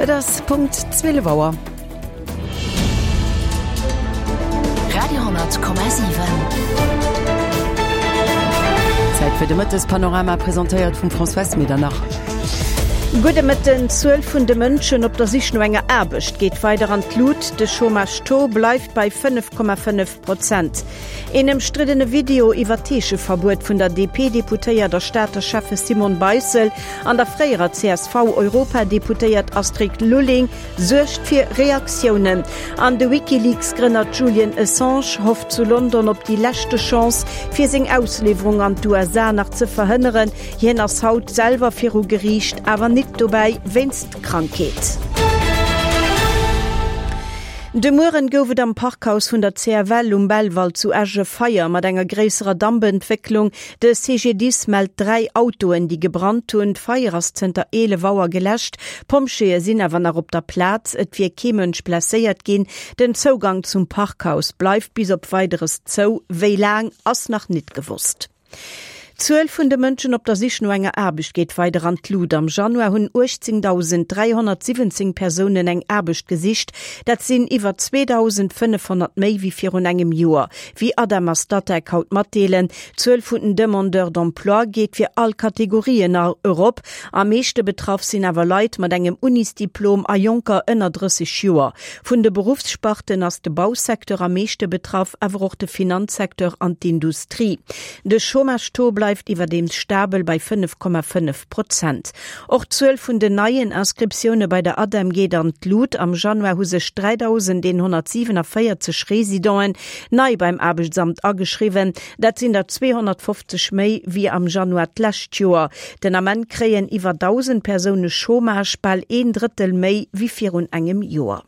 Et ass Punkt 12 Auer. Radio,7. Zäit fir de Mëttespanorama, presentéiert vum Françoise Medernach. Gudde Mëtten. D'Zuel vun de Mënschen op der Sich no enger Aarbecht geet weider an d'Lut. De Chômage-Taux bleift bei 5,5 Prozent. Een ëmstriddene Video iwwer d'Heescheverbuet vun der DP-Deputéiert a Stater Schäffe Simone Beissel an der fréierer CSV-Europadeputéiert Astrid Lulling suergt fir Reaktiounen. An de WikiLeaks-Grënner Julian Assange hofft zu London op déi leschte Chance, fir seng Ausliwwerung an d'USA nach ze verhënneren. Hien ass haut selwer viru Geriicht, awer nit dobäi wéinst Krankheet. De Mueren gouf et am Parkhaus vun der CFL um Belval zu Esch e Feier mat enger gréisserer Dampentwécklung. De CGDIS mellt 3 Autoen, déi gebrannt hunn. D'Feier ass zënter 11 Auer geläscht. D'Pompjeeë sinn awer nach op der Plaz. Et wier kee Mënsch blesséiert ginn. Den Zougang zum Parkhaus bleift bis op Weideres zou. Wéi laang, ass nach nit gewosst. D'Zuel vun de Mënschen op der Sich no enger Aarbecht geet weider an d'Lut. Am Januar hunn 18.317 Persounen eng Aarbecht gesicht. Dat sinn iwwer 2.500 méi wéi virun engem Joer, wéi ADEM a Statec haut matdeelen. D'Zuel vun den Demandeurs d'emploi geet fir all Kategorien erop. Am meeschte betraff sinn awer Leit mat engem Unisdiplom a Jonker ënner 30 Joer. Vun de Beruffssparten ass de Bausecteur am meeschte betraff, awer och de Finanzsecteur an d'Industrie. De Chômage-Taux bleift iwwerdeems stabel bei 5,5 Prozent. Och d'Zuel vun den neien Inscriptioune bei der ADEM geet an d'Lut. Am Januar hu sech 3.147 Residenten nei beim Aarbechtsamt ageschriwwen. Dat sinn der 250 méi wéi am Januar d'lescht Joer. Den Ament kréien iwwer 1.000 Persoune Chômage, bal een Drëttel méi wéi virun engem Joer.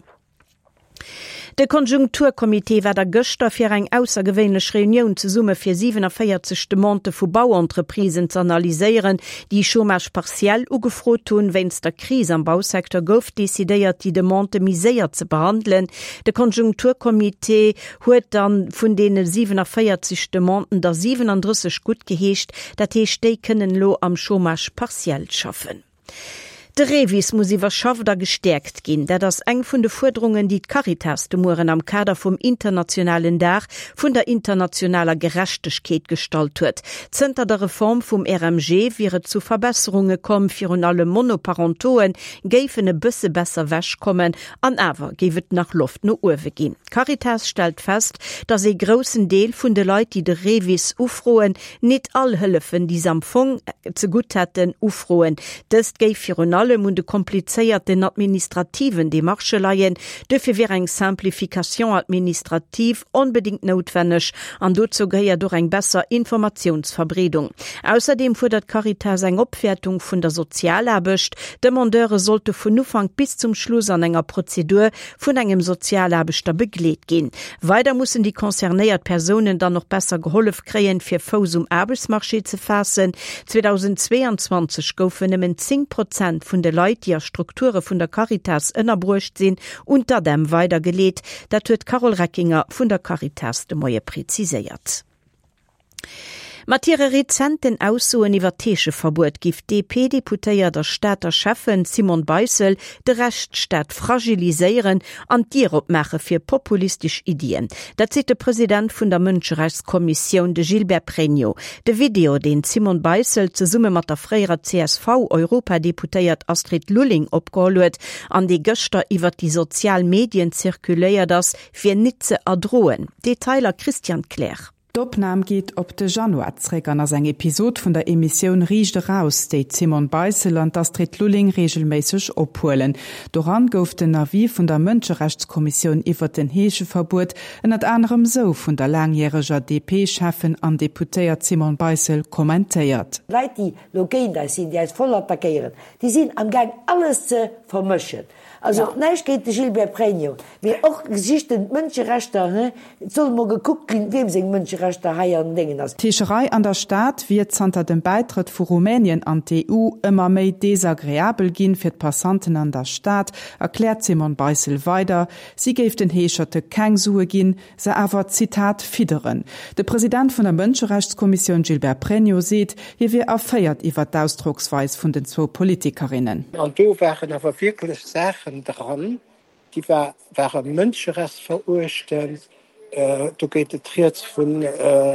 De Konjunkturcomité war da gëschter fir eng aussergewéinlech Reunioun zesumme fir 47 Demandë vu Bauentreprisen z'analyséieren, déi Chômage partiel ugefrot hunn. Wéinst der Kris am Bausecteur gouf decidéiert, déi Demandë méi séier ze behandelen. De Konjunkturcomité huet dann vun deene 47 Demanden der 37 guttgeheescht. Dat heescht, déi kënnen elo am Chômage partiel schaffen. De REVIS muss iwwerschafft a gestäerkt ginn. Dat ass eng vun de Fuerderungen, déi d'Caritas de Mueren am Kader vum internationalen Dag vun der internationaler Gerechtegkeet gestallt huet. Zënter der Reform vum RMG wier et zu Verbesserunge komm, virun allem Monoparentoe géifen e bësse besser wech kommen An awer géif et nach Loft no uewe ginn. D'Caritas stellt fest, datt ee groussen Deel vun de Leit, déi de REVIS ufroen, nit all Hëllefen, déi se am Fong zegutt hätten, ufroen. Dëst géif virun allem un de komplizéierten administrativen Demarchë leien. Duerfir wier eng Simplification administrative onbedéngt noutwenneg an dozou gehéiert och eng besser Informatiounsverbreedung. Ausserdeem fuerdert d'Caritas eng Opwäertung vun der Sozialaarbecht. D'Demandeure sollte vun Ufank bis zum Schluss an enger Prozedur vun engem Sozialaarbechter begleet ginn. Weider mussen déi concernéiert Persounen dann och besser gehollef kréien, fir Fouss um Aarbechtsmarché ze faassen. 2022 goufen nëmmen 10 Prozent vun de Leit, déi a Strukture vun der Caritas ënnerbruecht sinn, un d'ADEM weidergeleet. Dat huet d'Carole Reckinger vun der Caritas de Moie preziséiert. Mat hire rezenten Aussoen iwwer d'Heescheverbuet giff d'DP-Deputéiert a Stater Schäffen Simone Beissel de Rechtsstaat fragiliséieren an d'Dier opmaache fir populistesch Iddien. Dat seet de President vun der Mënscherechtskommissioun, de Gilbert Pregno. De Video, deen d'Simone Beissel zesumme mat der fréierer CSV-Europadeputéiert Astrid Lulling opgeholl huet, an dee gëschter iwwert déi sozial Medien zirkuléiert ass, wier nit ze erdroen. Detailer Christian Kleer. D'Opnam geet op de Januar zréck an ass eng Episod vun der Emissioun Riicht eraus, déi d'Simone Beissel an d'Astrid Lulling reegelméisseg ophuelen. Doran gouf den Avis vun der Mënscherechtskommissioun iwwert den Heescheverbuet ënnert anerem sou vun der laangjäreger DP-Schäffen an Deputéiert Simone Beissel kommentéiert. Leit, déi lo géint eis sinn, déi eis voll attackéieren, déi sinn am Gaang alles ze vermëschen. Also näischt géint de Gilbert Pregno, mee och Geschichten, d'Mënscherechter, he, et soll emol gekuckt ginn, wiem seng Mënscherechter. Mënscherechter hei an Déngen ass. D'Heescherei an der Stad wier zanter dem Bäitrëtt vu Rumänien an d'EU ëmmer méi desagreabel ginn fir d'Passanten an der Stad, erkläert d'Simone Beissel weider. Si géif den Heescherte keng Sue ginn, se awer, Zitat, fidderen. De President vun der Mënscherechtskommissioun Gilbert Pregno seet, hie wier erféiert iwwer d'Ausdrocksweis vun den zwou Politikerinnen. An do waren awer wierklech Saachen dran, déi ware mënscherechtsveruechtend. Do geet et rieds vun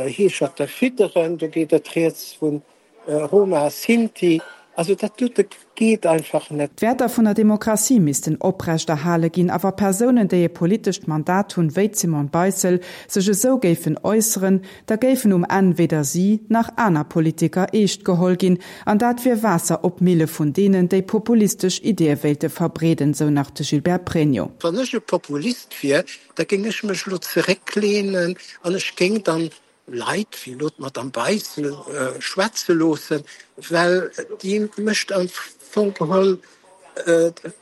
Heescherte fidderen, do geet et rieds vu Roma, Sinti, also dat dote geet einfach net. D'Wäerter vun der Demokratie missten oprecht erhale ginn a wa Persounen, déi e politescht Mandat hunn, wéi d'Simone Beissel, sech esou géifen äusseren, da géifen um Enn weder si nach aner Politiker eescht geholl ginn an dat wier Waasser op d'Mille vun deenen, déi populistesch Ideeë wéilte verbreeden, sou nach de Gilbert Pregno. Wann ech e Populist wier, da géing ech mech elo zerécklehnen an ech géing dann Leit wéi elo d'Madame Beissel schwätze loossen, well déi mécht am Fong geholl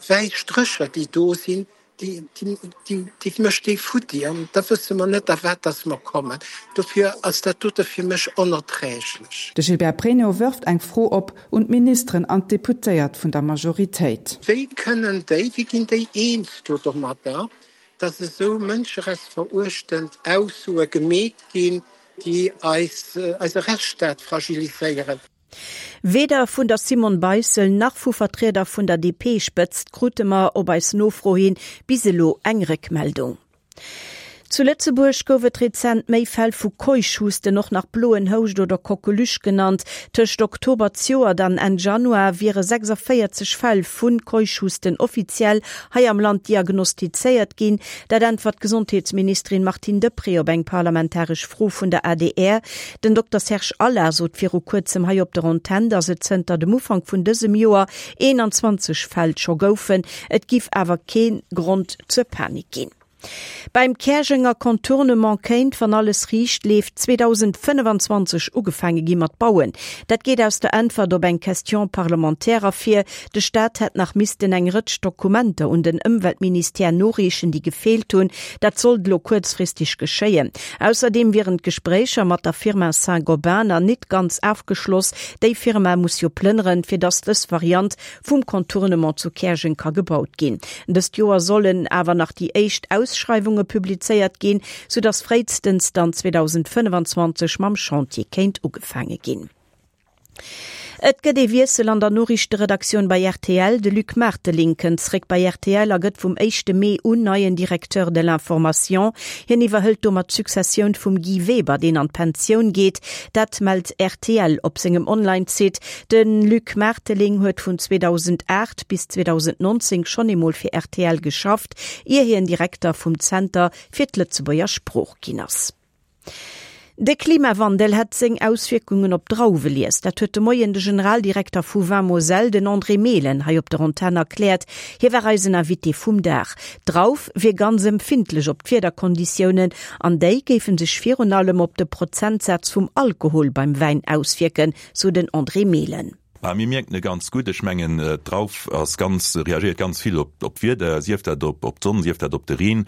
wäiss Strécher, déi do sinn, déi mécht déi futti an da wësse mer net, a wat dass mer kommen. Dofir ass dat dote fir mech onerträglech. De Gilbert Pregno wërft eng Fro op un d'Ministeren an d'Deputéiert vun der Majoritéit. Wéi kënnen déi, wéi ginn déi eens do domadder, dass esou mënscherechtsveruechtend Aussoe gemeet ginn, déi eis, eise Rechtsstaat fragiliséieren. Weder vun der Simone Beissel nach vu Vertrieder vun der DP-Spëtzt krute mer op eis Nofro hin bis elo eng Réckmeldung. Zu Lëtzebuerg gouf et rezent méi Fäll vu Keuchhusten, och nach bloen Houscht oder Coqueluche genannt. Tëscht Oktober zejoert an Enn Januar wiere 46 Fäll vu Keuchhusten offiziell hei am Land diagnostizéiert ginn. Dat äntwert d'Gesondheetsministerin Martine Deprez op eng parlamentaresch Fro vun der adr. Den Dokter Serge Allard sot viru kuerzem hei op der Antenn, datt et zënter dem Ufank vun dësem Joer 21 Fäll scho goufen. Et giff awer kee Grond zur Panik ginn. Beim Käerjenger Contournement kéint, wann alles riicht leeft, 2025 ugefaange gi mat bauen. Dat geet aus der Äntwert op eng Question parlementaire ervir. De Staat hätt nach missten eng Rëtsch Dokumenter un den Ëmweltministère noreechen, déi gefeelt hunn. Dat sollt elo kuerzfristeg geschéien. Ausserdeem wieren d'Gespréicher mat der Firma Saint-Gobain nach nit ganz afgeschloss. Déi Firma muss jo plënneren, fir datt dës Variant vum Contournement zu Käerjeng ka gebaut ginn. Dëst Joer sollen awer nach déi éischt Ausschreiwunge publizéiert ginn, soudass fréistens dann 2025 mam Chantier kéint ugefaange ginn. Et gëtt ee Wiessel an der Noriichteredaktioun bei rtl. De Luc Marteling kënnt zréck bei rtl a gëtt vum éischte Mee un neien Directeur de l'information. Hien iwwerhëlt domat d'Successioun vum Guy Weber, deen an d'Pensioun geet. Dat mellt rtl op sengem Online-Site. De Luc Marteling huet vun 2008 bis 2019 schonn eemol fir rtl geschafft, ier hien Direkter vum Zenter fir d'Lëtzebuerger Sprooch ginn ass. De Klimawandel hätt seng Auswierkungen op d'Drauwelies. Dat huet de Moien de Generaldirekter vu Vin Moselle, den André Mehlen, hei op der Antenn erkläert. Hie war eisen Invité vum Dag. D'Drauf wier ganz empfindlech op d'Wiederkonditiounen an déi géife sech virun allem op de Prozentsaz vum Alkohol beim Wäin auswierken, sou den André Mehlen. Bah, mir mierken e ganz gutt. Ech mengen, d'Drauf ass ganz, reagéiert ganz vill op op d'Wieder, sief dat op op d'Sonn, sief dat op de Reen.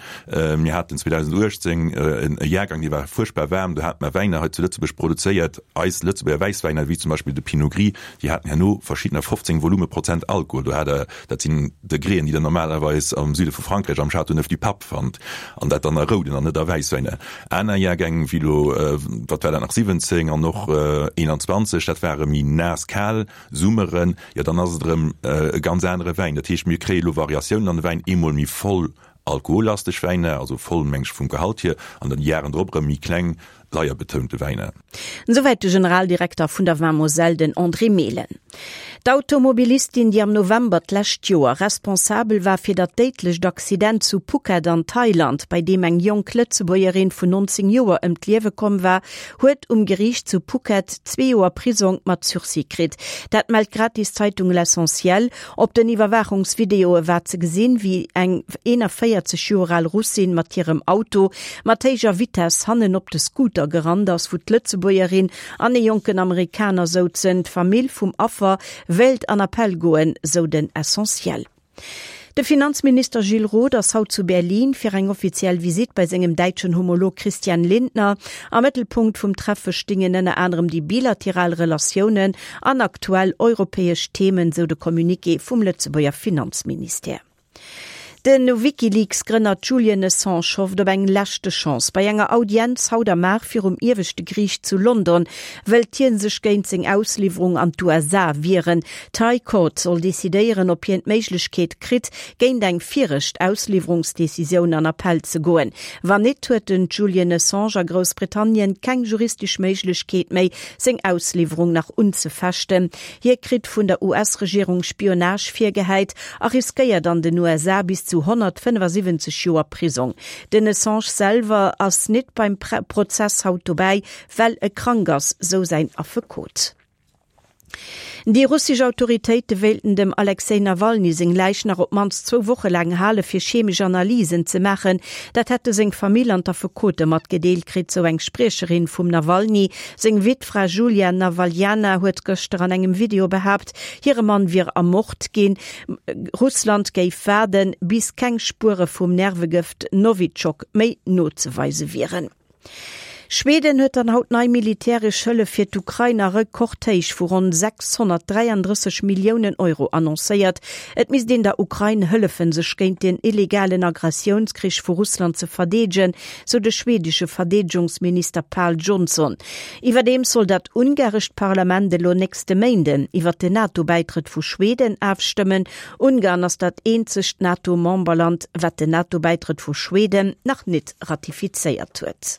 Mir haten 2018 e Jahrgang, dee war fuerchtbar waarm. Do hate mer Wäiner hei zu Lëtzebuerg produzéiert, eis Lëtzebuerger Wäisswäiner, wéi zum Beispill de Pinot Gris, déi haten herno verschiddener 15 Volumeprozent Alkohol. Do hat Der, dat sinn Degréen, déi Der normalerweis am Süde vu Frankräich am Châteauneuf-du-Pape fannt, an dat dann a rouden an net a Wäisswäiner. Aner Jahrgäng, wéi elo, wat war dat nach, 17 an och 21, dat ware méi naass, kal Summeren, jo dann ass et erëm e ganz anere Wäin. Dat heescht, mir kréie elo Variatiounen an de Wäin, eemol méi voll alkohollasteg Wäiner, also voll meng ech vum Gehalt hier, an dann déi Jaren drop erëm méi kleng, leierbetounte Wäiner. Esouwäit de Generaldirekter vun der Vin Moselle, den André Mehlen. D'Automobilistin, déi am November d'lescht Joer responsabel war fir dat déidlecht Accident zu Phuket an Thailand, bei deem eng jonk Lëtzebuergerin vun 19 Joer ëm d'Liewe komm war, huet um Geriicht zu Phuket zwee Joer Prisong mat Sursis kritt. Dat mellt d'Gratiszeitung L'Essentiel. Op den Iwwerwaachungsvideoe war ze gesinn, wéi eng 41 Joer al Russin mat hirem Auto mat héijer Vitess hannen op de Scooter gerannt ass, wou d'Lëtzebuergerin an ee jonken Amerikaner souzen. D'Famill vum Affer wéilt an Appell goen, sou den Essentiel. De Finanzminister Gilles Roth ass haut zu Berlin fir eng offiziell Visitt bei sengem däitschen Homolog Christian Lindner. Am Mëttelpunkt vum Treffe stingen ënner anerem déi bilateral Relatiounen an aktuell europäesch Themen, sou de Communiqué vum Lëtzebuerger Finanzministère. De WikiLeaks-Grënner Julian Assange hofft op eng leschte Chance. Bei enger Audienz haut am Mar virum Ieweschte Geriicht zu London wëllt hie sech géint seng Ausliwwerung an d'USA wieren. D'High Court soll decidéieren, ob hien d'Méiglechkeet kritt, géint eng viregt Ausliwwerungsdecisioun an Appell ze goen. Wann nit, huet den Julian Assange a Groussbritannien keng juristesch Méiglechkeet méi, seng Ausliwwerung nach unzefechten. Hie kritt vun der US-Regierung Spionage virgehäit a riskéiert an den USA bis zu 175 Joer Prisong. Den Assange selwer ass nit beim Prozess haut dobäi, well e krank ass, sou säin Affekot. Déi russesch Autoritéite wéilten dem Alexej Nawalny seng Läich nach op d'mannst zwou Woche laang hale fir chemesch Analysen ze maachen. Dat hätte seng Famill an d'Affekote matgedeelt kritt, sou eng Spriecherin vum Nawalny. Seng Wittfra Julia Nawaljana huet gëschter an engem Video behaapt, hire Mann wier ermort ginn. Russland géif waarden, bis keng Spuere vum Nervegëft Nowitschok méi nozeweise wieren. Schweden huet dann haut nei militäresch Hëllef fir d'Ukrain a Rekordhéich vu ronn 633 Milliounen Euro annoncéiert. Et misst een der Ukrain hëllefen, sech géint den illegalen Agressiounskrich vu Russland ze verdeedegen, sou de schwedesche Verdeedegungsminister Pal Jonson. Iwwerdeems soll dat ungarescht Parlament elo nächste Méinden iwwert den NATO-Bäitrëtt vu Schweden afstëmmen. Ungarn ass dat eenzegt NATO-Memberland, wat den NATO-Bäitrëtt vu Schweden nach nit ratifizéiert huet.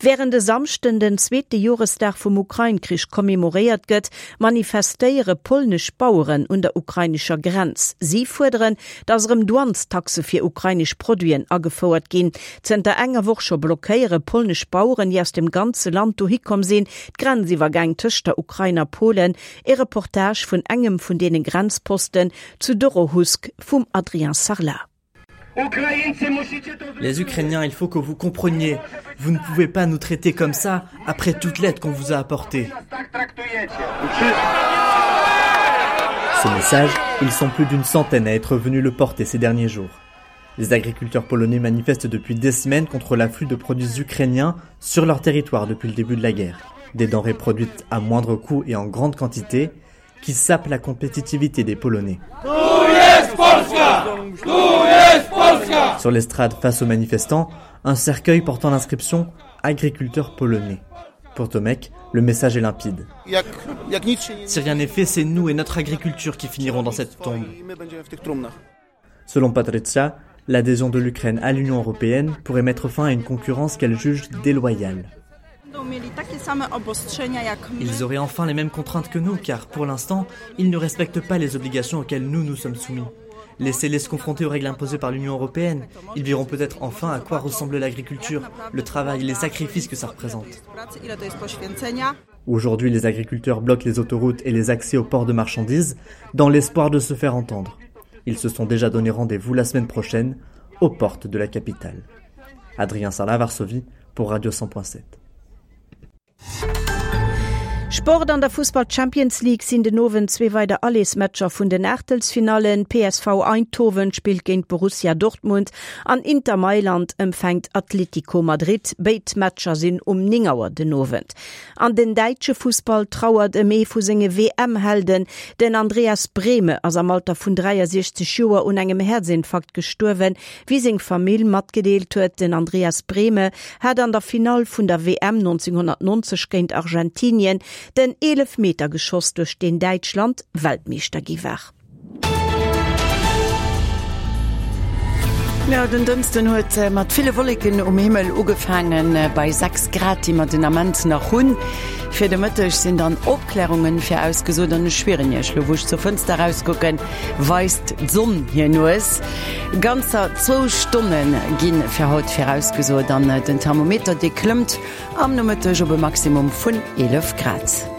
Wärend e Samschden den zweete Joresdag vum Ukrain-Krich commemoréiert gëtt, manifestéiere polnesch Baueren un der ukrainescher Grenz. Si fuerderen, datt erëm Douanestaxe fir ukrainesch Produiten agefouert ginn. Zënter enger Woch scho blockéiere polnesch Baueren, déi aus dem ganze Land dohi komm sinn, d'Grenziwwergäng tëscht der Ukrain a Polen. E Reportage vun engem vun deene Grenzposten zu Dorohusk vum Adrien Sarlat. Les Ukrainiens, il faut que vous compreniez, vous ne pouvez pas nous traiter comme ça après toute l'aide qu'on vous a apportée. Ce message, ils sont plus d'une centaine à être venus le porter ces derniers jours. Les agriculteurs polonais manifestent depuis des semaines contre l'afflux de produits ukrainiens sur leur territoire depuis le début de la guerre. Des denrées produites à moindre coût et en grande quantité qui sapent la compétitivité des Polonais. Sur l'estrade face aux manifestants, un cercueil portant l'inscription Agriculteur polonais. Pour Tomek, le message est limpide. Si rien n'est fait, c'est nous et notre agriculture qui finiront dans cette tombe. Selon Patricia, l'adhésion de l'Ukraine à l'Union européenne pourrait mettre fin à une concurrence qu'elle juge déloyale. Ils auraient enfin les mêmes contraintes que nous, car pour l'instant, ils ne respectent pas les obligations auxquelles nous nous sommes soumis. Laissez-les se confronter aux règles imposées par l'Union européenne. Ils verront peut-être enfin à quoi ressemble l'agriculture, le travail, les sacrifices que ça représente. Aujourd'hui, les agriculteurs bloquent les autoroutes et les accès aux ports de marchandises dans l'espoir de se faire entendre. Ils se sont déjà donné rendez-vous la semaine prochaine aux portes de la capitale. Adrien Sarla, Varsovie pour Radio 100.7. Sport An der Fussball Champions League sinn den Owend zwee weider Allersmatcher vun den Aachtelsfinallen. PSV Eindhoven spillt géint Borussia Dortmund an Inter Mailand empfänkt Atlético Madrid. Béid Matcher sinn um 9 Auer den Owend. An den däitsche Fussball trauert ëm ee vu senge WM-Helden. Den Andreas Brehme ass am Alter vun 63 Joer un engem Häerzinfarkt gestuerwen, wéi seng Famill matgedeelt huet. Den Andreas Brehme hat an der Finall vun der WM 1990 géint Argentinien den Eelefmeter geschoss, duerch deen Däitschland Weltmeeschter gi war. Jo, den Dënschden huet mat ville Wolleken um Himmel ugefaangen, bei 6 Grad, déi mer den Ament nach hunn. Fir de Mëtteg sinn dann Opklärungen virausgesot an ech schwieren Iech, lo wou ech zur Fënster erauskucken, weist d'Sonn hir Nues. Ganzer zwou Stonne gi fir haut virausgesot an den Thermometer, dee klëmmt am Nomëtteg op e Maximum vun 11 Grad.